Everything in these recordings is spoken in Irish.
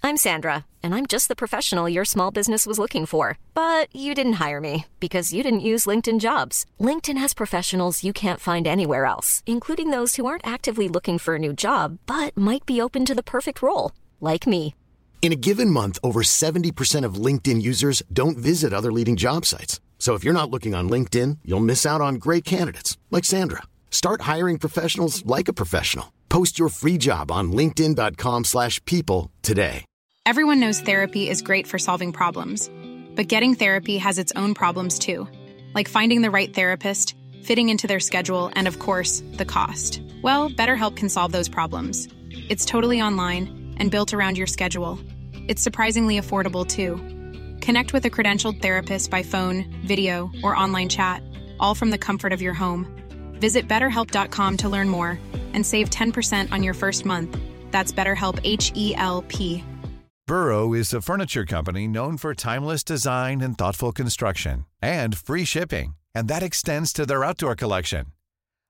I'm Sandra, and I'm just the professional your small business was looking for. But you didn't hire me because you didn't use LinkedIn jobs. LinkedIn has professionals you can't find anywhere else, including those who aren't actively looking for a new job but might be open to the perfect role, like me. In a given month, over 70% of LinkedIn users don't visit other leading job sites. So if you're not looking on LinkedIn, you'll miss out on great candidates like Sandra. Start hiring professionals like a professional. Post your free job on linkedin.com/people slash people today. Everyone knows therapy is great for solving problems, but getting therapy has its own problems too, like finding the right therapist, fitting into their schedule, and of course, the cost. Well, BetterHelp can solve those problems. It's totally online and built around your schedule. It's surprisingly affordable too. Connect with a credentialed therapist by phone, video, or online chat, all from the comfort of your home. Visit betterhelp.com to learn more and save 10% on your first month. That's BetterHelp H E L P. Burrow is a furniture company known for timeless design and thoughtful construction and free shipping, and that extends to their outdoor collection.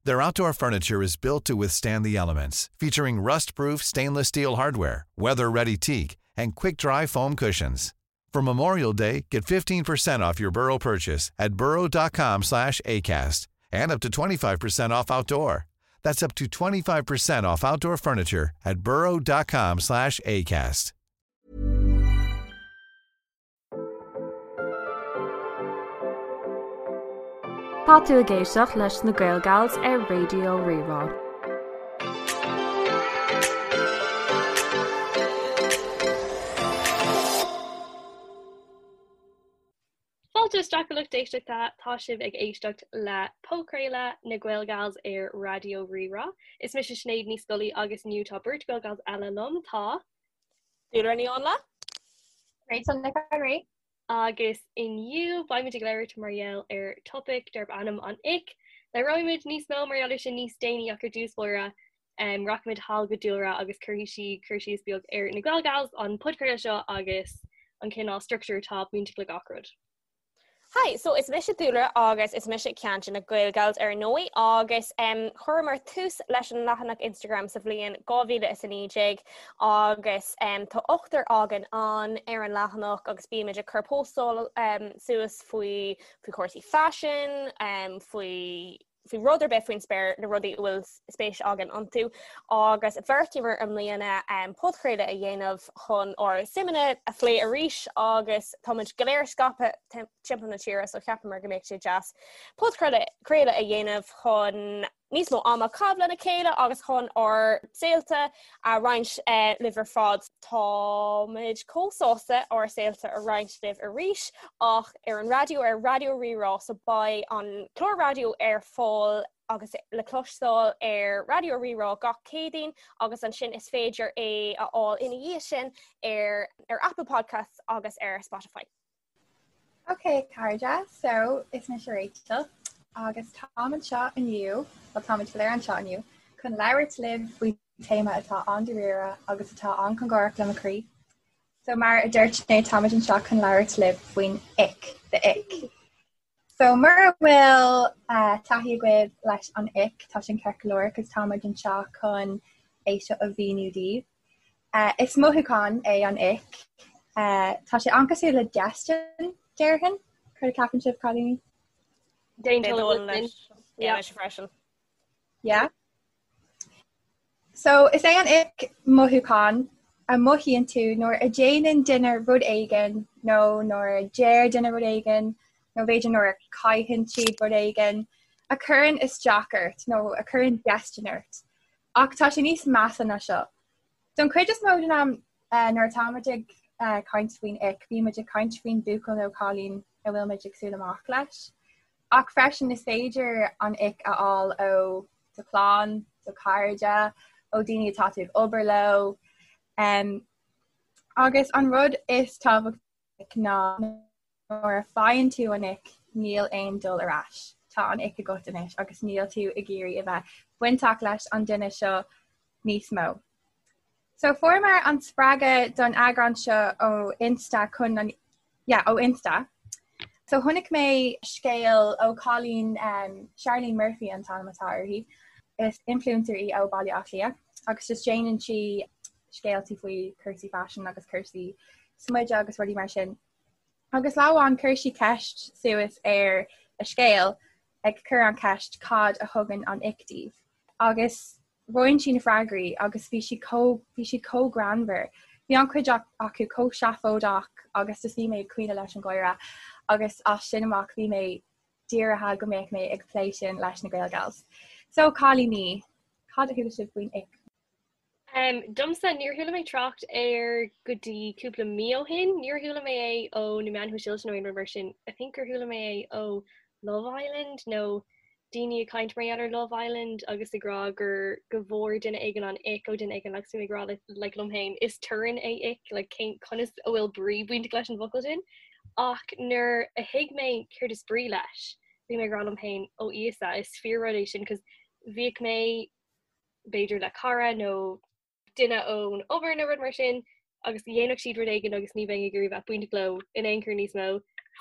Their outdoor furniture is built to withstand the elements, featuring rust-proof stainless steel hardware, weather-ready teak, and quick-dry foam cushions. For Memorial Day, get 15% off your Burrow purchase at burrow.com slash ACAST and up to 25% off outdoor. That's up to 25% off outdoor furniture at burrow.com slash ACAST. Tá tú ag éisteacht leis na Gaelgals ar Raidió Rí-Rá. Fáilte isteach a lucht éisteachta, tá sibh ag éisteacht le podchraoladh na Gaelgals ar Raidió Rí-Rá. Is mise Sinéad Ní Scolaí agus inniu tá beirt Gaelgals eile liom, tá. Dúlra Ní Áinle. Rachel Nic an Rí. Agus inniu beimid ag labhairt mar gheall ar topaic darb ainm an ick. Labhróimid níos mó mar gheall air sin níos déanaí ach ar dtús báire rachaimid thall go Dúlra agus cuirfidh sí cur síos beag ar na Gaelgals, an podchraoladh seo agus an cineál struchtúr atá bainteach le gach rud. Hi, so is mise Dúlra agus is mise ceann de na Gaelgals ar ndóigh agus um, chuireamar tús leis an leathanach Instagram sa bhliain 2019 agus um, tá ochtar againn ann ar an leathanach agus bímid ag cur postáil um, suas faoi faoi chúrsaí faisin, um, faoi faoi rud ar bith faoin spéir, na rudaí a bhfuil spéis againn iontu, agus bheartaíomar i mbliana podchraoladh a dhéanamh chun ár suimeanna a phlé arís agus táimid go léir scaipthe timpeall na tíre so cheapamar go mbeadh sé deas podchraoladh a dhéanamh chun níos mó ama a chaitheamh lena chéile agus chun ár saolta a roinnt libh ar fad. Táimid chomh sásta ár saolta a roinnt libh arís ach ar an raidió ar Raidió Rí-Rá so beidh an clár raidió ar fáil agus le cloisteáil ar Raidió Rí-Rá gach Céadaoin agus ansin is féidir é a fháil ina dhiaidh sin ar ar Apple Podcasts agus ar Spotify. Ok cairde, so is mise Rachel agus táim anseo inniu, bhuel táimid go léir anseo inniu, chun labhairt libh faoi téama atá an-dáiríre agus atá an-chóngarach le mo chroí. So mar a dúirt Sinéad, táimid anseo chun labhairt libh faoin ick, the ick. So mura bhfuil taithí agaibh leis an ick, tá sin ceart go leor, cos táimid anseo chun é seo a mhíniú daoibh. Is mothúchán é an ick. Tá sé an-cosúil le déistin, déarfainn. Céard a cheapann sibh, cailíní? D'aontóinn leis. Yeah, mise freisin. Yeah. So is é an ick mothúchán a mothaíonn tú nuair a déanann duine rud éigin nó nuair a deir duine rud éigin nó b'fhéidir nuair a caitheann siad rud éigin a chuireann isteach ort nó a chuireann déistin ort. Ach tá sé níos measa ná seo. Don chuid is mó den am nuair atáimid ag caint faoin ick, bímid ag caint faoin buachaill nó cailín a bhfuilimid ag súil amach leis. Ach freisin is féidir an ick a fháil ó do chlann, do chairde, ó daoine atá tú ag obair leo. Agus an rud is tábhachtaí ná Nuair a faigheann tú an ick, níl aon dul ar ais. Tá an ick agat anois agus níl tú ag iarraidh a bheith bainteach leis an duine seo níos mó. So fuaireamar an spreagadh don eagrán seo ó Insta chun an yeah, ó Insta. So chonaic mé scéal ó cailín um, Charlene Murphy an t-ainm atá uirthi. Is influencer í ó Baile Átha Cliath agus just déanann sí. scéaltaí faoi cúrsaí faisin agus cúrsaí smididh agus rudaí mar sin. Agus lá amháin chuir sí ceist suas ar a scéal ag cur an cheist cad a thugann an ick daoibh? Agus roinn sí na freagraí agus bhí siad chomh bhí siad chomh greannmhar. Bhí an-chuid acu chomh seafóideach agus just bhí mé ag caoineadh leis an gháire agus as sin amach bhí mé dírithe go mbeadh mé ag plé sin leis na Gaelgals. So cailíní, cad a chuala sibh faoin ick? Um, domsa níor chuala mé trácht air go dtí cúpla mí ó shin, níor chuala mé é ó na meáin shóisialta nó aon rud mar sin. I think gur chuala mé é ó Love Island nó daoine ag caint mar gheall ar Love Island agus ag rá gur go bhfuair duine éigin an ick ó duine éigin agus bhí mé ag rá le like liom féin is torann é ick like cén conas a bhfuil brí bainteach leis an bhfocal sin ach nuair a thuig mé céard is brí leis bhí mé ag rá liom féin ó Íosa is fíor rud é sin cos bhíodh mé b'fhéidir le cara nó duine ón obair nó rud mar sin agus dhéanfadh siad rud éigin agus ní bheinn ag iarraidh bheith bainteach leo in aon chor níos mó.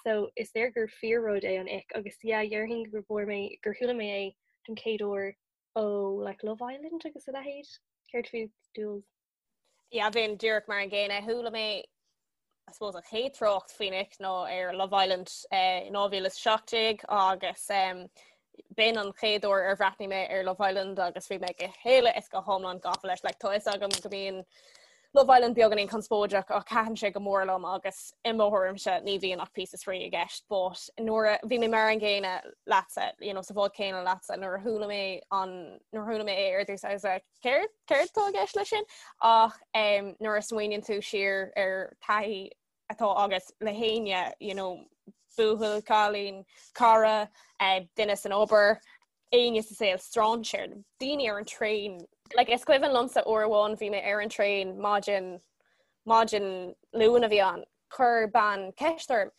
So is léir gur fíor rud é an ick agus yeah déarfainn gur bhfuair mé gur chuala mé é don chéad uair ó like Love Island agus a leithéid. Céard fút Jules? Yeah bheinn díreach mar an gcéanna. Chuala mé I suppose an chéad trácht faoin ick ná ar Love Island in 2017 agus b'in an chéad uair ar bhreathnaigh mé ar Love Island agus bhí mé go huile is go hiomlán gafa leis. Like, tá fhios agam go mbíonn Love Island beagáinín conspóideach ach thaitin sé go mór liom agus i mo thuairimse ní bhíonn ach píosa spraoi i gceist. But nuair a bhí mé mar an gcéanna leatsa, you know, sa bhád céanna leatsa, nuair a chuala mé an nuair a chuala mé é ar dtús I was like, céard céard atá i gceist leis sin ach um, nuair a smaoiníonn tú siar ar taithí atá agat le héinne you know, buachaill, cailín, cara, uh, duine san obair, éinne sa saol strainséir, daoine ar an traein. Like, is cuimhin liomsa uair amháin bhí mé ar an traein maidin maidin Luain a bhí ann Chuir bean ceist orm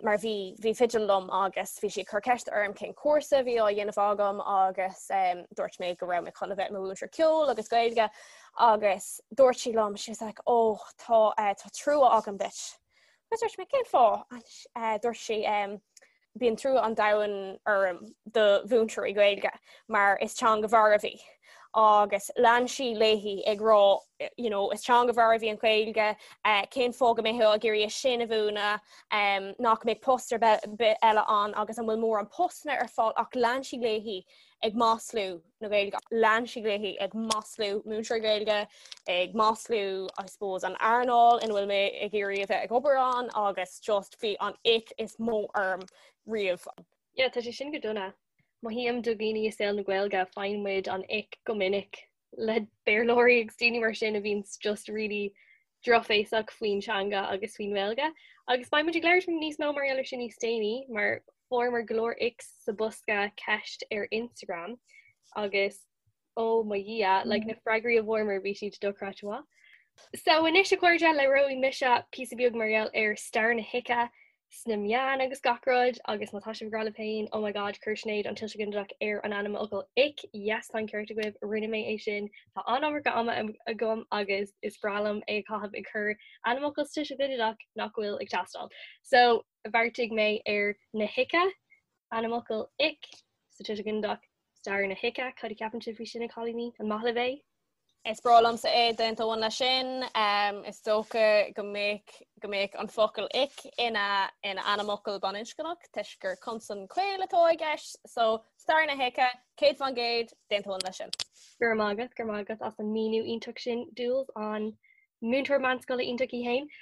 mar bhí bhí fidil liom agus bhí sí ag cur ceist orm cén cúrsa a bhí á dhéanamh agam agus um, dúirt mé go raibh mé chun a bheith i mo mhúinteoir ceoil agus Gaeilge agus dúirt sí liom she was like oh tá uh, tá trua agam duit. Agus dúirt mé cén fáth uh, dúirt sí um, Bíonn trua an domhain orm do mhúinteoirí Gaeilge mar is teanga mharbh í agus lean sí léi ag rá you know, is teanga mharbh í an Ghaeilge, eh, cén fáth go mbeifeá ag iarraidh é sin a mhúineadh, um, nach mbeidh post ar bith eile ann agus an bhfuil mórán postanna ar fáil ach lean sí léi ag maslú na Gaeilge. Lean sí léi ag maslú múinteoirí Gaeilge, ag maslú I suppose an earnáil ina bhfuil mé ag iarraidh a bheith ag obair ann agus just bhí an ick is mó orm riamh. Yeah, tá sé sin go dona. Mothaím do dhaoine i saol na Gaeilge, faigheann muid an ick go minic le Béarlóirí agus daoine mar sin a bhíonns just really drochbhéasach faoin teanga agus faoin nGaeilge. Agus beidh muid ag labhairt níos mó mar gheall ar sin níos déanaí, mar fuaireamar go leor icks sa bosca ceist ar Instagram agus ó mo Dhia, like na freagraí a bhfuaireamar bhí siad dochreidte maith. So anois a chairde, labhróidh mise píosa beag mar gheall ar stair na hice sna meáin agus gach rud agus má tá sibh ag rá libh féin oh my god chuir Sinéad an tuiseal ginideach ar an ainmfhocal ick, yes tá an ceart agaibh, rinne mé é sin, tá an-iomarca ama agam agus is breá liom é a chaitheamh ag cur ainmfhocal sa tuiseal ginideach nach bhfuil ag teastáil. So bheartaigh mé ar na hice, ainmfhocal ick sa tuiseal ginideach, Stair na hice, cad a cheapann sibh faoi sin a chailíní? An maith libh é? Is breá liomsa é, d'aontóinn leis sin. Is dócha go mbeadh go mbeadh an focal ick ina ina ainmfhocal baininscneach toisc gur consan caol atá i gceist, so stair na hice, 100%, d'aontóinn leis sin. Go raibh maith agat, go raibh maith agat as an míniú iontach sin, Jules, an múinteoir meánscoile iontach í féin.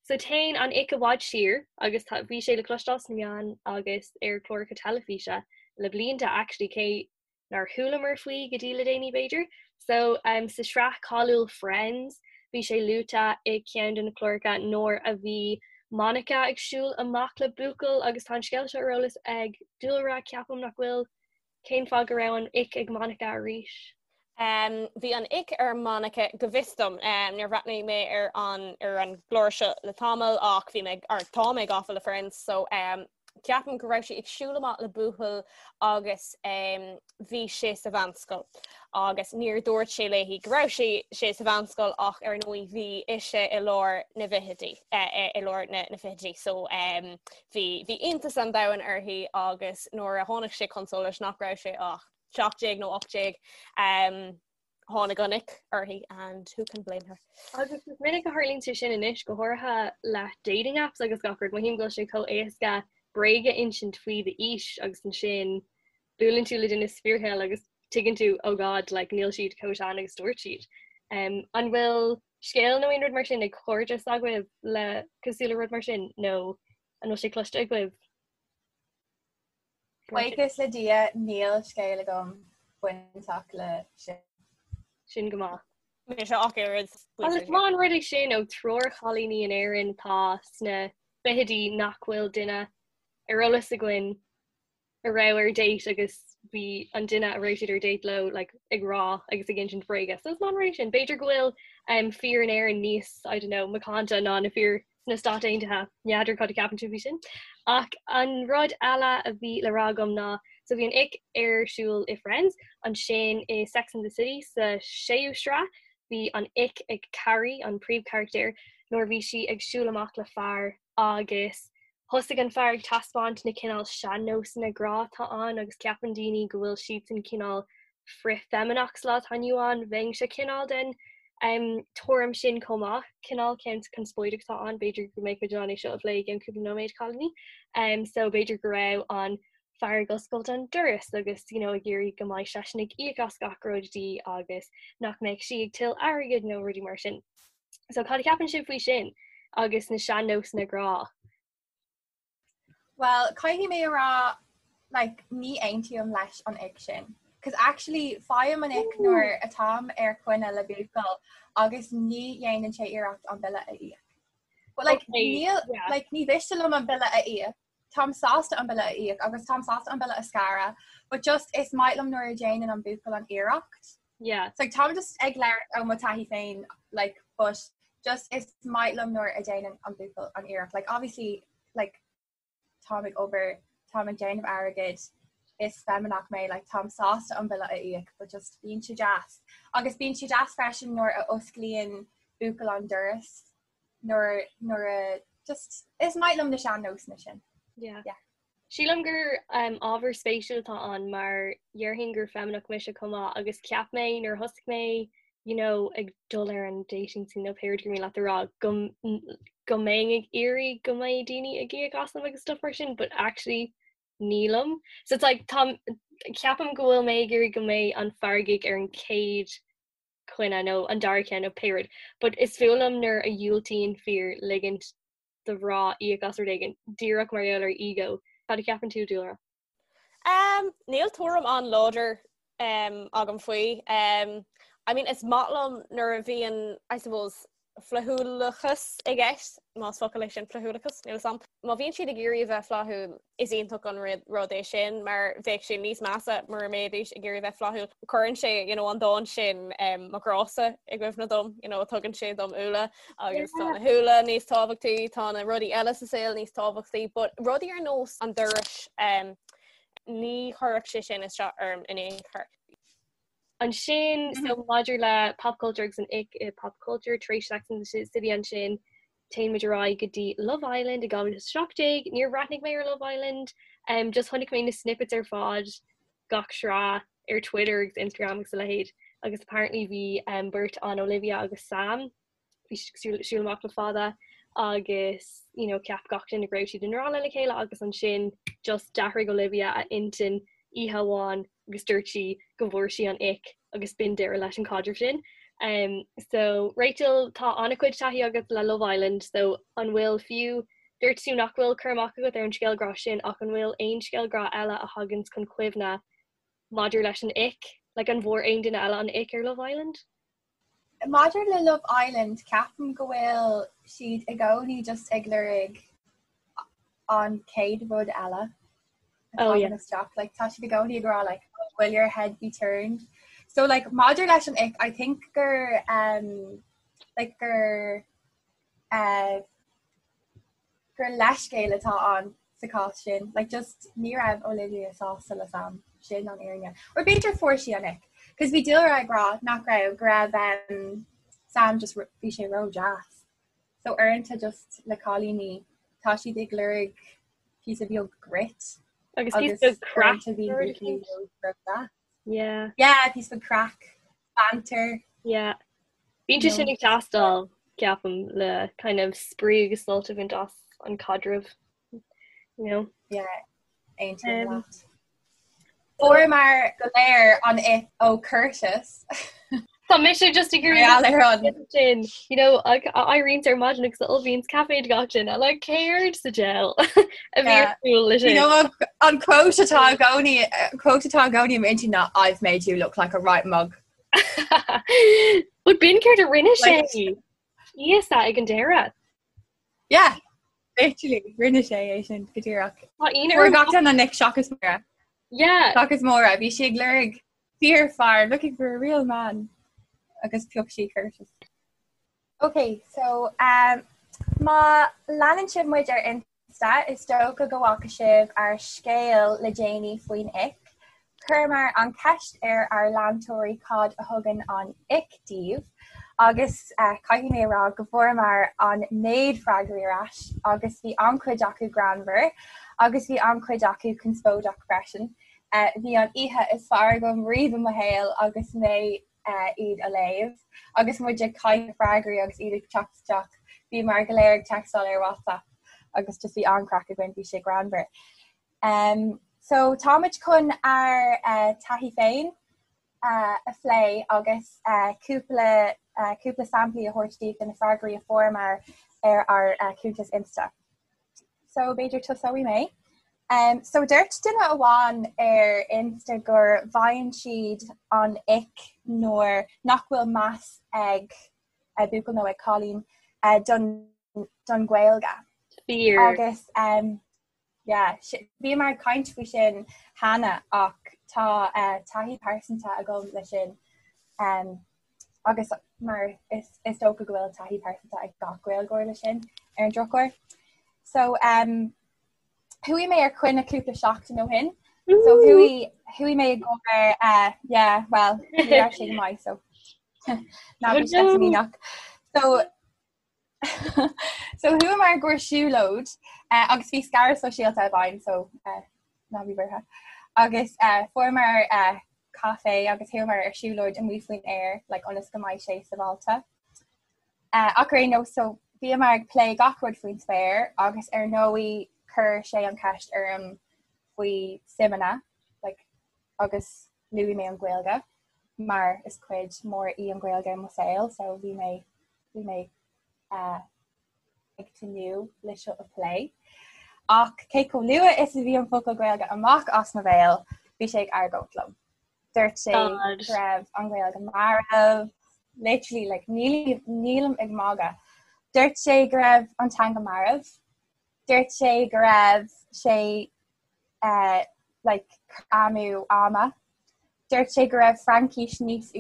So téann an ick i bhfad siar agus tá, bhí sé le cloisteáil sna meáin agus ar chláracha teilifíse le blianta actually cé nár chualamar faoi go dtí le déanaí b'fhéidir. So um, sa sraith cáiliúil Friends bhí sé luaite i ceann de na cláracha nuair a bhí Monica ag siúl amach le buachaill agus tá an scéal seo ar eolas ag Dúlra ceapaim nach bhfuil Cén fáth go raibh an ick ag Monica arís? Um, bhí an ick ar Monica go bhfios dom. Um, níor bhreathnaigh mé ar an, ar an gclár seo le tamall ach bhí mé, or tá mé gafa le Friends, so um, ceapaim go raibh sí ag siúl amach le buachaill agus um, bhí sé sa mheánscoil. Agus níor dúirt sé léi go raibh sé sé sa mheánscoil ach ar ndóigh bhí ise i lár na bhfichidí, eh, i lár na, na fichidí. So um, Bhí bhí iontas an domhain uirthi agus nuair a tháinig sé chun solais nach raibh sé ach 17 nó 18, um, tháinig an ick uirthi and who can blame her. Agus is minic a tharlaíonn sé sin anois, go háirithe le dating apps agus gach rud, mothaím go bhfuil sé chomh éasca bréag a insint faoi d'aois agus ansin buaileann tú le duine sa fíorshaol agus tuigeann tú oh god like níl siad chomh sean agus dúirt siad. Um, an bhfuil scéal nó aon rud mar sin ag cairde s'agaibh le cosúil le rud mar sin nó an bhfuil sé cloiste agaibh? Buíochas le Dia níl scéal agam bainteach le sin. Sin go maith. Mise ach oiread. Agus is maith an rud é sin ó triúr chailíní in Éirinn atá sna fichidí nach bhfuil duine ar eolas againn a raibh ar date agus bhí an duine a raibh siad ar date leo like, ag rá agus ag insint bréige. So is maith an rud é sin. B'fhéidir go bhfuil um, fir in Éirinn níos, I don't know, macánta ná na fir sna Stáit Aontaithe. N'fheadar cad a ceapann tú faoi sin. Ach an rud eile a bhí le rá agam ná so bhí an ick ar siúl i Friends, ansin i Sex and the City sa séú sraith, bhí an ick ag Carrie, an príomhcharachtar, nuair a bhí sí ag siúl amach le fear agus thosaigh an fear ag taispeáint na cineál sean-nósanna grá atá ann agus ceapann daoine go bhfuil siadsan cineál frith-fheimineach sa lá atá inniu ann. Bheinnse cineál den tuairim sin chomh maith. Cineál ceann conspóideach atá ann, b'fhéidir go mbeidh muid in ann é seo a phlé i gceann cúpla nóiméad, cailíní. So b'fhéidir go raibh an fear ag oscailt an doras agus you know ag iarraidh go mbeidh seisean ag íoc as gach rud di agus nach mbeadh sí ag tuilleamh airgid nó rudaí mar sin. So cad a cheapann sibh faoi sin agus na sean-nósanna grá? Well, caithfidh mé a rá like, ní aontaím leis an ick sin. Cos actually faighim an ick nuair atáim ar choinne le buachaill agus ní dhéanann sé iarracht an bille a íoc. But like, okay, níl, yeah. like, ní mhiste liom an bille a íoc. Táim sásta an bille a íoc agus táim sásta an bille a scaradh, but just is maith liom nuair a dhéanann an buachaill an iarracht. Yeah. So like, táim just ag labhairt ó mo taithí féin like, but just is maith liom nuair a dhéanann an buachaill an iarracht. Like, obviously, like, táim ag obair, táim ag déanamh airgid, is feimineach mé, like, táim sásta an bille a íoc, but just bíonn sé deas. Agus bíonn sé deas freisin nuair a osclaíonn buachaill an doras nuair nuair a just is maith liom na sean-nósanna sin. Yeah. Yeah. Sílim gur um, ábhar spéisiúil atá ann mar dhéarfainn gur feimineach mise chomh maith agus cheap mé nuair a thosaigh mé you know, ag dul ar an dating scene nó pé rud gur mian leat a rá go, go mbeinn ag iarraidh go mbeidh daoine ag íoc asam agus stuff mar sin, but actually nílim. So it's like tá ceapaim go bhfuil mé ag iarraidh go mbeidh an fear ag íoc ar an chéad choinne nó an dara ceann nó pé rud. But is fuath liom nuair a dhiúltaíonn fir ligint do mhná íoc as rud éigin, díreach mar gheall ar ego. Cad a cheapann tú, Dúlra? Um, níl tuairim an-láidir um, agam faoi. Um, I mean, is maith liom nuair a bhíonn, I suppose, flaithiúlachas i gceist, más focal é sin flaithiúlachas, níl a fhios a'm. Má bhíonn siad ag iarraidh a bheith flaithiúil, is iontach an rud é sin, mar bheadh sé níos measa mura mbeidís ag iarraidh bheith flaithiúil. Cuireann sé you know, an dán sin um, mo ghrása i gcuimhne dom, you know, tugann sé dom úlla agus tá na húlla níos tábhachtaí, tá na rudaí eile sa saol níos tábhachtaí, but rudaí ar nós an dorais um, ní chuirfeadh sé sin isteach orm in aon chor. Ansin so maidir le pop culture agus an ick i pop culture tar éis Sex and the City ansin téann muid ar aghaidh go dtí Love Island i 2017. Níor bhreathnaigh mé ar Love Island, um, just chonaic mé na snippets ar fad gach sraith ar Twitter agus Instagram agus a leithéid agus apparently bhí um, beirt ann Olivia agus Sam bhí siad ag siúl amach le fada agus you know, cheap gach duine go raibh siad i ngrá lena chéile agus ansin just d'athraigh Olivia a intinn oíche amháin agus dúirt sí go bhfuair sí an ick agus b'in deireadh leis an caidreamh sin. Um, so Rachel tá an-chuid taithí agat le Love Island, so an bhfuil fiú dúirt tú nach bhfuil cur amach agat ar an scéal grá sin ach an bhfuil aon scéal grá eile a thagann chun cuimhne maidir leis an ick? Like an bhfuair aon duine eile an ick ar Love Island? Maidir le Love Island, ceapaim go bhfuil siad i gcónaí just ag lorg an chéad rud eile atá Oh, yeah. isteach. Like, tá siad i gcónaí ag rá like, oh, will your head be turned? So like, maidir leis an ick, I think gur um, like, gur uh, gur leithscéal atá ann sa chás sin. Like just ní raibh Olivia sásta le Sam. Sin an fhírinne. Or b'fhéidir fuair sí an ick. Cos bhí Dúlra ag rá nach raibh go raibh um, Sam just bhí sé ró-deas. So uaireanta just le cailíní tá siad ag lorg píosa beag grit. Agus píosa beag craic. uaireanta bhí Yeah. Yeah, píosa beag craic. Banter. Yeah. Bíonn sé sin ag teastáil, ceapaim, le kind of spraoi agus sult a bhaint as an caidreamh, you know? Yeah, aontaím leat. Fuaireamar go léir an ick ó Curtis. Tá mise just ag iarraidh sin, you know, éiríonn ar maidin agus ullmhaíonn caife do gach duine, like céard sa diabhal a bhí ar siúl leis sin. You know, an quote atá i gcónaí, quote atá i gcónaí i m'intinn ná I've made you look like a right mug. But b'in céard a rinne sé íosa ag an deireadh. Yeah, literally, rinne sé é sin go díreach. Tá aon Fuair gach duine an ick seachas Máire. Yeah. Seachas Máire, bhí sí ag lorg fíorfhear, looking for a real man. Agus phioc sí Curtis. Ok, so um, má leanann sibh muid ar Insta, is dócha go bhfaca sibh ár scéal le déanaí faoin ick. Chuireamar an cheist ar ár leantóirí cad a thugann an ick daoibh agus caithfidh mé a rá go bhfuaireamar an méid freagraí ar ais agus bhí an-chuid acu greannmhar agus bhí an-chuid acu conspóideach freisin. Bhí an oíche is fearr agam riamh i mo shaol agus mé iad a léamh agus muid ag caint freagraí agus iad ag teacht isteach. Bhíomar go léir ag textáil ar WhatsApp agus just bhí an-chraic againn, bhí sé greannmhar. Um, so táimid chun ár uh, taithí féin uh, a phlé agus uh, cúpla uh, cúpla samplaí a thabhairt daoibh de na freagraí a fuaireamar ar ár uh, cuntas Insta. So b'fhéidir tosóidh mé. Um, so dúirt duine amháin ar Insta gur bhfaigheann siad an ick nuair nach bhfuil meas ag uh, buachaill nó ag cailín uh, don, don Ghaeilge. Fíor. Agus um, yeah, bhíomar ag caint faoi sin cheana ach tá uh, taithí pearsanta agam le sin. Um, agus mar is, is dócha go bhfuil taithí pearsanta ag gach Gaeilgeoir le sin ar an drochuair. So um, chuaigh mé ar coinne cúpla seachtain ó shin. So chuaigh chuaigh mé i gcomhair uh, yeah, well, ní raibh sé go maith so ná bí sceitimíneach. So So chuamar i gcomhair siúlóid uh, agus bhí scaradh sóisialta i bhfeidhm so uh, ná bí buartha. Agus uh, fuaireamar uh, caife agus chuamar ar siúlóid amuigh faoin aer like, ionas go mbeidh sé sábháilte. Uh, ach ar aon nós so bhíomar ag plé gach rud faoin spéir agus ar ndóigh chuir sé an cheist orm faoi suimeanna like, agus luaigh mé an Ghaeilge mar is cuid mór í an Ghaeilge i mo saol so bhí mé bhí mé uh, ag tnúth le seo a phlé. Ach cé chomh luath is a bhí an focal Gaeilge amach as mo bhéal, bhí sé ag argóint liom. Dúirt sé go raibh an Ghaeilge marbh, literally like, nílim ag magadh. Dúirt sé go raibh an teanga marbh. Dúirt sé go raibh sé uh, like, amú ama. Dúirt sé go raibh Fraincis níos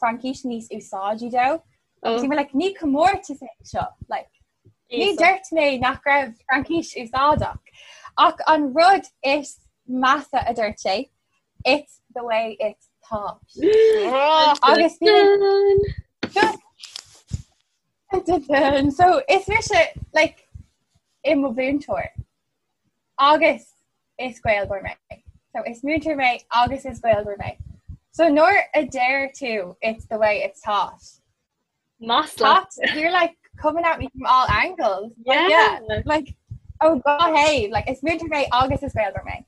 Fraincis níos úsáidí dó. Oh. Bhí mé like, ní comórtas é seo like, ní dúirt mé nach raibh Fraincis úsáideach. Ach an rud is measa a dúirt sé, it's the way it's taught. Agus just so is mise like i mo mhúinteoir. Agus is Gaeilgeoir mé. So is múinteoir mé agus is Gaeilgeoir mé. So nuair a deir tú it's the way it's taught. Masla. You're like coming at me from all angles. Like, yeah. Like oh god hey, like is múinteoir mé agus is Gaeilgeoir mé.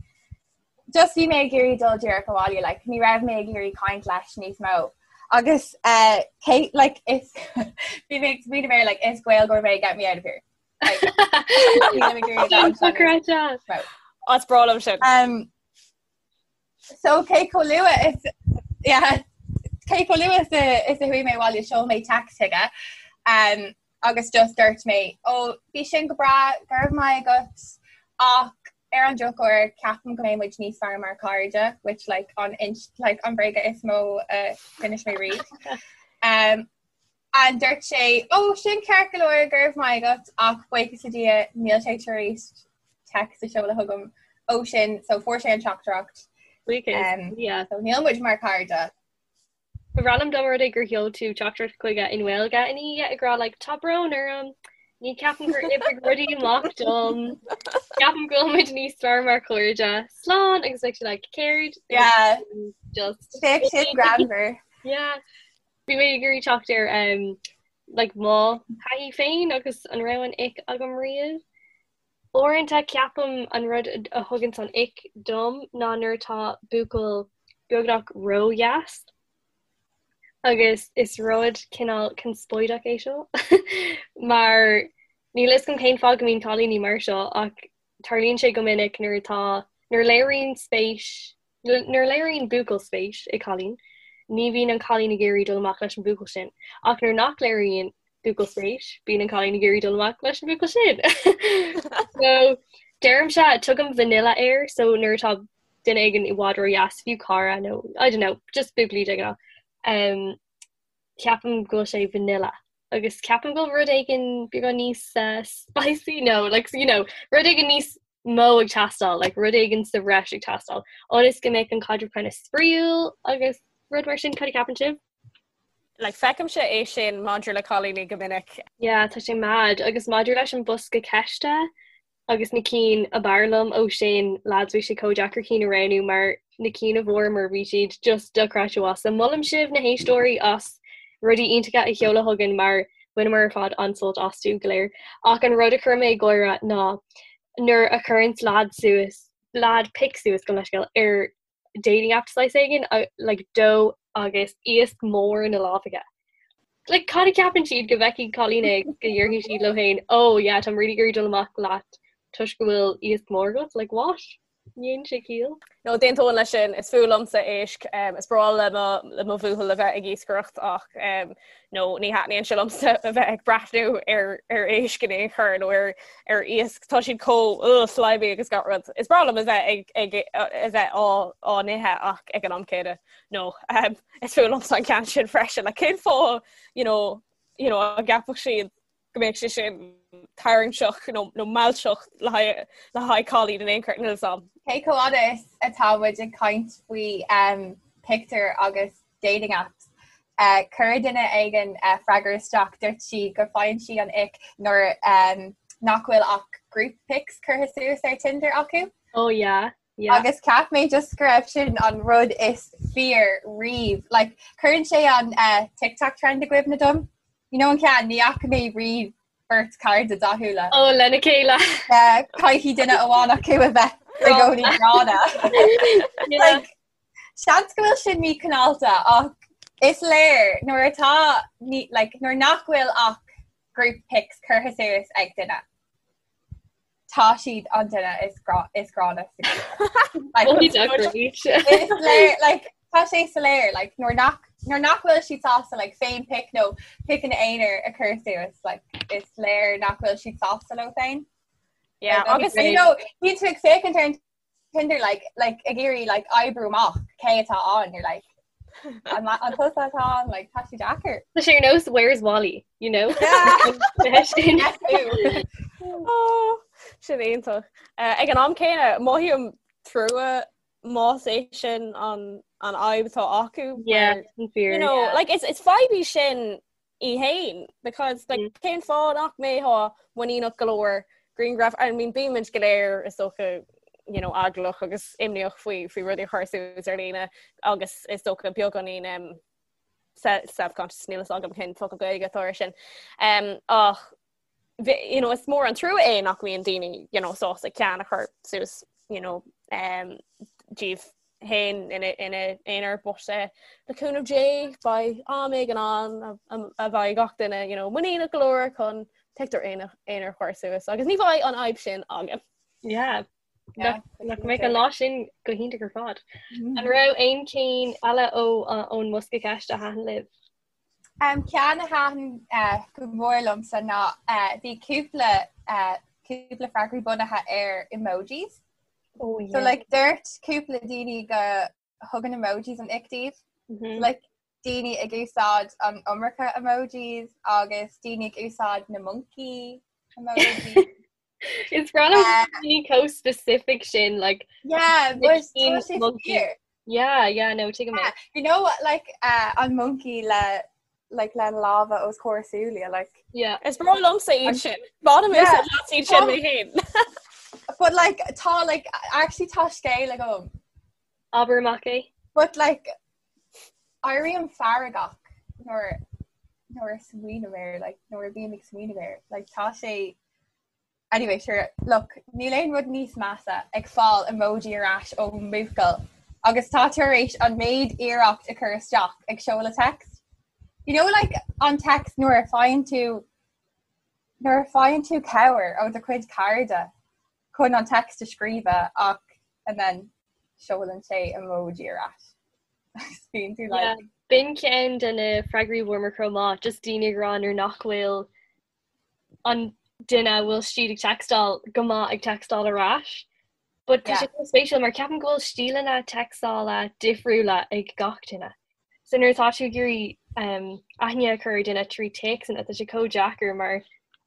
Just bhí mé ag iarraidh dul díreach abhaile, like ní raibh mé ag iarraidh caint leis níos mó. Agus uh, Kate, like is bhí mé ag smaoineamh air, like is Gaeilgeoir mé get me out of here. As breá liom sin. Um, so cé chomh luath is yeah, cé chomh luath is a is a chuaigh mé abhaile sheol mé text chuige um, agus just dúirt mé ó bhí sin go breá go raibh maith agat ach ar an drochuair ceapaim go mbeidh muid níos fearr mar chairde which like an like an bréaga is mó a d'inis mé riamh. Um, And dúirt sé, Ó, sin ceart go leor, go raibh maith agat, ach buíochas le Dia, níl sé tar éis text a sheoladh chugam ó sin, so fuair sé an teachtaireacht. Buíochas le Dia. So níl muid mar chairde. Ba bhreá liom dá mba rud é gur sheol tú teachtaireacht chuige i nGaeilge ina dhiaidh ag rá like tá brón orm, ní ceapaim gur oibrigh rudaí amach dom, ceapaim go bhfuil muid níos fearr mar chairde, slán agus bheadh sé like céard? Yeah. Just. Bheadh sin greannmhar. Yeah. Bhí mé ag iarraidh teacht ar um, like, mo thaithí féin agus an raibh an ick agam riamh. Uaireanta ceapaim an rud a thuganns an ick dom ná nuair atá buachaill beagnach ródheas agus is rud cineál conspóideach é seo mar níl fhios agam cén fáth go mbíonn cailíní mar seo ach tarlaíonn sé go minic nuair atá nuair a léiríonn spéis Nuair a léiríonn buachaill spéis i gcailín, ní bhíonn an cailín ag iarraidh dul amach leis an bhuachaill sin. Ach nuair nach léiríonn buachaill spéis, bíonn an cailín ag iarraidh dul amach leis an bhuachaill sin. So, deirimse, tugaim vanilla air, so nuair atá duine éigin i bhfad ródheas, fiú cara nó, I don't know, just buachaillí de ghnáth, um, ceapaim go bhfuil sé vanilla. Agus ceapaim go bhfuil rud éigin beagán níos uh, spicy, no, like, you know, rud éigin níos mó ag teastáil, like rud éigin sa bhreis ag teastáil, ionas go mbeadh an caidreamh kind of spraíúil agus rud mar sin, cad a cheapann sibh? Like feicimse é sin maidir le cailíní go minic. Yeah, tá sé mad. Agus maidir leis an bosca ceiste agus na cinn ab fhearr liom ó sin, lads, bhí sé chomh deacair cinn a roghnú mar na cinn a bhfuaireamar bhí siad just dochreidte mhaith. So molaim sibh na héisteoirí as rudaí iontacha a sheoladh chugainn mar bhaineamar ar fad an-sult astu go léir. Ach an rud a chuir mé ag gáire ná nuair a chuireanns leaid suas, leaid pic suas gabh mo leithscéal, ar dating app saghas éigin, like dó agus iasc mór ina lámh aige. Like cad a cheapann siad go bhfeicfidh cailín é go ndéarfaidh siad leo féin, oh yeah, táim really ag iarraidh dul amach leat toisc go bhfuil iasc mór agat, like what? Ní dhéanann sé ciall. No, d'aontóinn leis sin, is fuath liomsa éisc. Is breá le mo le mo bhuachaill a bheith ag iascaireacht ach no, ní thaitníonn sé liomsa a bheith ag breathnú ar ar éisc in aon chor nó ar ar iasc. Tá siad chomh ugh, slimy agus gach rud. Is breá liom a bheith ag ag a bheith á á n-ithe ach ag an am céanna no, is fuath liomsa an ceann sin freisin. Like cén fáth, you know, you know, an gceapfadh siad go mbeadh sé sin tarraingteach nó nó mealltach le haghaidh le haghaidh cailín in aon chor níl 'fhios a'm. Cé chomh fhada is atá muid ag caint faoi um, pictiúir agus dating apps, uh, chuir duine éigin uh, freagra isteach dúirt sí go faigheann sí an ick nuair um, nach bhfuil ach group pics curtha suas ar Tinder acu. Oh yeah. Yeah. Agus cheap mé just go raibh sin an rud is fíor riamh. Like, cuireann sé an uh, TikTok trend i gcuimhne dom. You know an ceann, ní fhaca mé riamh beirt cairde dathúla. Ó, lena chéile. Caithfidh duine amháin acu a bheith i gcónaí gránna. Like, seans go bhfuil sin míchineálta ach is léir nuair atá ní, like, nuair nach bhfuil ach group pics curtha suas ag duine. Tá siad an duine is grá is gránna sa Is léir like tá sé soiléir like nuair nach nuair nach bhfuil siad sásta like féin pic nó piceanna aonair a chur suas like is léir nach bhfuil siad sásta leo féin. Yeah, agus you know bíonn tú ag féachaint ar an Tinder like like ag iarraidh like oibriú amach cé atá ann you're like an an tusa atá ann like tá sé deacair. Tá sé ar nós where's Wally you know? Oh, sin iontach. Uh, ag an am céanna mothaím trua más é sin an an fhadhb atá acu. Yeah, you know, yeah. like it's it's fadhb í sin í fhéin because like mm. cén fáth nach mbeifeá muiníneach go leor grianghraf I mean bímid go léir is dócha you know eaglach agus imníoch faoi faoi rudaí a chur suas ar líne agus is dócha beagáinín um, self-conscious níl a fhios agam cén focal Gaeilge atá air sin um, ach you know, is mór an trua é nach mbíonn daoine you know, sásta ceann a chur suas you know, um, díobh féin ina n-aonar but eh, le cúnamh Dé beidh am éigin ann a bheidh gach duine you know, muiníneach go leor chun pictiúr aonair a chur suas agus ní bheidh an fhadhb sin againn. Yeah. Nach mbeidh an lá sin go hiontach ar fad. Mm. An raibh aon cinn eile ó ón mbosca ceiste a thaitin libh? Um, ceann a thaitin uh, go mór liomsa ná uh, bhí cúpla uh, cúpla freagraí bunaithe ar emojis. Oh, yeah. So like dúirt cúpla daoine go thugann emojis an ick dóibh. Mm -hmm. Like daoine ag úsáid an iomarca emojis agus daoine ag úsáid na monkey emojis. Is breá liom uh, daoine chomh specific sin like yeah, but monkey. Yeah, yeah, no, tuigim yeah, you know what like uh, an monkey le like le lámha os comhair súile like yeah is breá liomsa iad sin Bainim iad sin mé féin but like tá like actually tá scéal agam Abair amach é but like éirím feargach. nuair nuair a smaoiním air, like nuair a bím ag smaoineamh air, like tá sé Anyway, sure, look, níl aon rud níos measa ag fáil emoji ar ais ó mbuachaill agus tá tú tar éis an méid iarracht a chur isteach ag seoladh text. You know like an text nuair a faigheann tú nuair a faigheann tú cabhair ó do chuid cairde chun an text a scríobh ach and then seolann sé emoji ar ais. Bíonn tú like Yeah, b'in ceann de na freagraí a bhfuaireamar chomh maith, just daoine ag rá nuair nach bhfuil an duine a bhfuil siad ag textáil go maith ag textáil ar ais. But tá sé yeah. spéisiúil mar ceapaim go bhfuil stíleanna textála difriúla ag gach duine. So nuair atá tú ag iarraidh um, aithne a chur ar duine trí téacsanna tá sé chomh deacair mar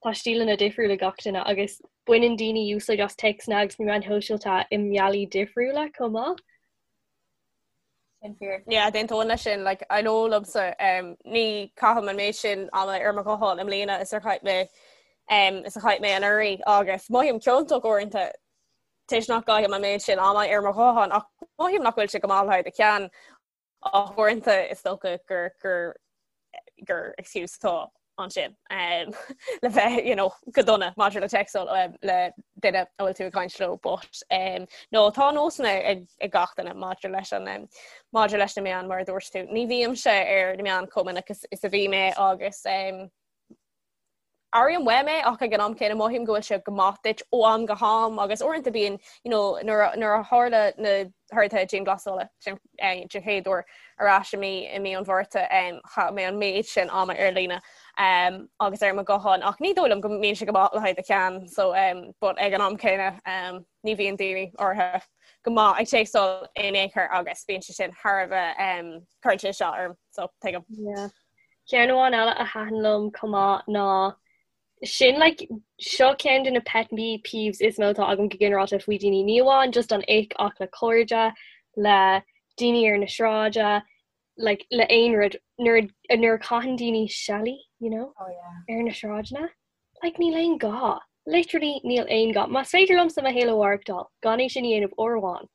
tá stíleanna difriúla ag gach duine agus baineann daoine úsáid as téacsanna agus na meáin shóisialta i mbealaí difriúla chomh maith. Sin fíor. Yeah, d'aontóinn leis sin, like, I know liomsa, um, ní chaithim an méid sin ama ar mo ghuthán i mbliana is ar chaith mé um, is a chaith mé anuraidh agus mothaím ciontach uaireanta toisc nach gcaithim an méid sin ama ar mo ghuthán ach mothaím nach bhfuil sé go maith le haghaidh do cheann ach uaireanta is dócha gur gur gur excuse atá ansin um, le bheith you know, go dona maidir le textáil um, le duine a bhfuil tú ag caint leo but um, no tá nósanna ag, ag gach duine maidir leis an um, maidir leis na meáin mar a dúirt tú. Ní bhímse ar na meáin chomh minic is, is a bhí mé agus um, Airím uaim é ach ag an am céanna mothaím go bhfuil sé go maith duit ó am go ham agus uaireanta bíonn you know, nuair a, nuair a tharla na horduithe dianghlasála den eh, den chéad uair ar ais i mí i mí an Mhárta um, chaith mé an méid sin ama ar líne um, agus ar mo ghuthán ach ní dóigh liom go mbíonn sé go maith le haghaidh do cheann so um, but ag an am céanna um, ní bhíonn daoine áirithe go maith ag téacsáil in aon chor agus bíonn sé sin thar a bheith um, cuireann sé isteach orm so tuigim. Yeah. Ceann amháin eile a thaitin liom chomh maith ná sin like seo ceann de na pet peeves is mó atá agam go ginearálta faoi daoine, ní amháin just an ick ach le cairde, le daoine ar na sráide, like le aon rud nuair nuair a chaitheann daoine seilí, you know, oh, yeah. ar na sráideanna. Like níl aon gá. Literally níl aon gá. Más féidir liomsa mo shaol a mhaireachtáil gan é sin a dhéanamh uair amháin,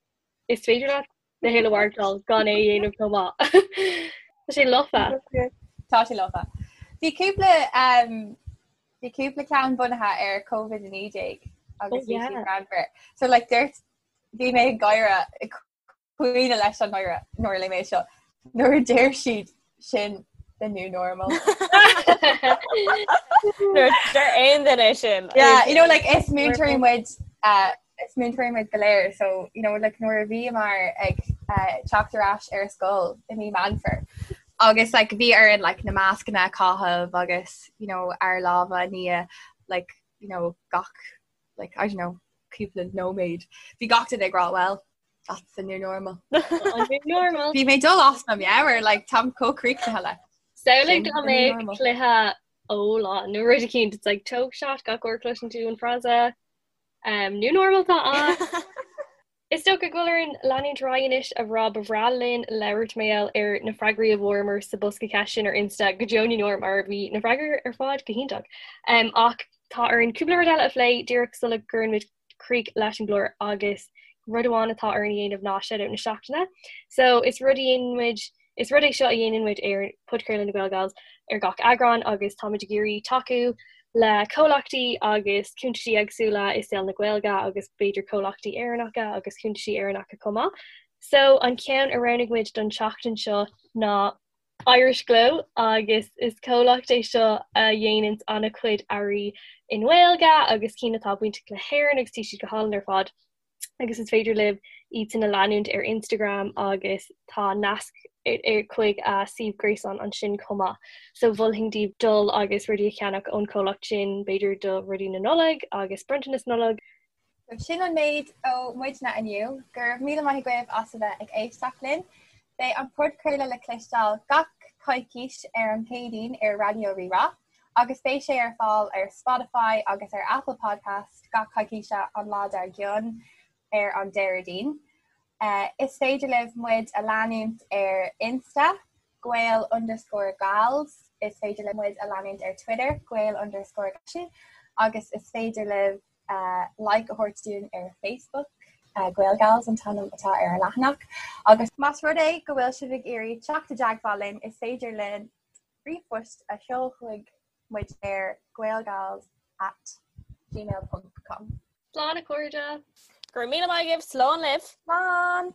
is féidir leat do shaol a mhaireachtáil gan é a dhéanamh chomh maith. Tá sé lofa. Tá sé lofa. Bhí cúpla um, bhí cúpla ceann bunaithe ar COVID-19 agus bhí siad greannmhar. So like dúirt bhí mé ag gáire ag caoineadh leis an ngáire nuair a léigh mé seo. Nuair a deir siad sin the new normal. Nuair a deir aon duine sin. Yeah, you know like is múinteoirí muid uh, is múinteoirí muid go léir so you know like nuair a bhíomar ag uh, teacht ar ais ar scoil i mí Meán Fómhair agus like bhí orainn like na mascanna a chaitheamh agus you know ár lámha a ní like you know gach like I don't know cúpla nóiméad bhí gach duine ag rá well that's the new normal. An new normal. Bhí mé dul as mo meabhair like táim chomh críochnaithe le. Samhlaigh dá mbeadh cluiche óláin nó rud eicínt it's like tóg shot gach uair a chloiseann tú an frása um, new normal tá ann. Is dócha go bhfuil orainn leanúint ar aghaidh anois a rá ba bhreá linn labhairt mar gheall ar na freagraí a bhfuaireamar sa bosca ceist sin ar Insta go deo na ndeor mar bhí na freagraí ar fad go hiontach. Um, ach tá orainn cúpla rud eile a phlé díreach sula gcuireann muid críoch leis an gclár agus rud amháin atá orainn a dhéanamh ná shout-out na seachtaine. So is rud a dhéanann muid is rud é seo a dhéanann muid ar Podchraoladh na GaelGals ar gach eagrán agus táimid ag iarraidh tacú le comhlachtaí agus cuntaisí éagsúla i saol na Gaeilge agus b'fhéidir comhlachtaí Éireannacha agus cuntaisí Éireannacha chomh maith. So an ceann a roghnaigh muid don tseachtain seo ná Irish Glow agus is comhlacht é seo a dhéananns an-chuid earraí i nGaeilge agus cinn atá bainteach le hÉirinn agus tá siad go hálainn ar fad agus is féidir libh iad sin a leanúint ar Instagram agus tá nasc chuig a suíomh gréasáin ansin chomh maith. So mholfainn daoibh dul agus rudaí a cheannach ón chomhlacht sin, b'fhéidir do rudaí na Nollag agus bronntanas Nollag. Sin an méid ó muidne inniu. Go raibh míle maith agaibh as a bheith ag éisteacht linn. Beidh an podchraoladh le cloisteáil gach coicís ar an Chéadaoin ar Raidió Rí-Rá agus beidh sé ar fáil ar Spotify agus ar Apple Podcast gach coicíse an lá dár gcionn ar an Déardaoin. Is féidir libh muid a leanúint ar Insta, Gael underscore Gals, is féidir libh muid a leanúint ar Twitter, Gael underscore agus is féidir libh like a thabhairt dúinn ar Facebook, Gaelgals an t-ainm atá ar an leathanach. Agus más rud é go bhfuil sibh ag iarraidh teacht i dteagmháil linn, is féidir linn. Ríomhphost a sheol chuig muid ar gaelgals at gmail ponc com. Slán a chairde! Go raibh míle maith agaibh, slán libh! Slán!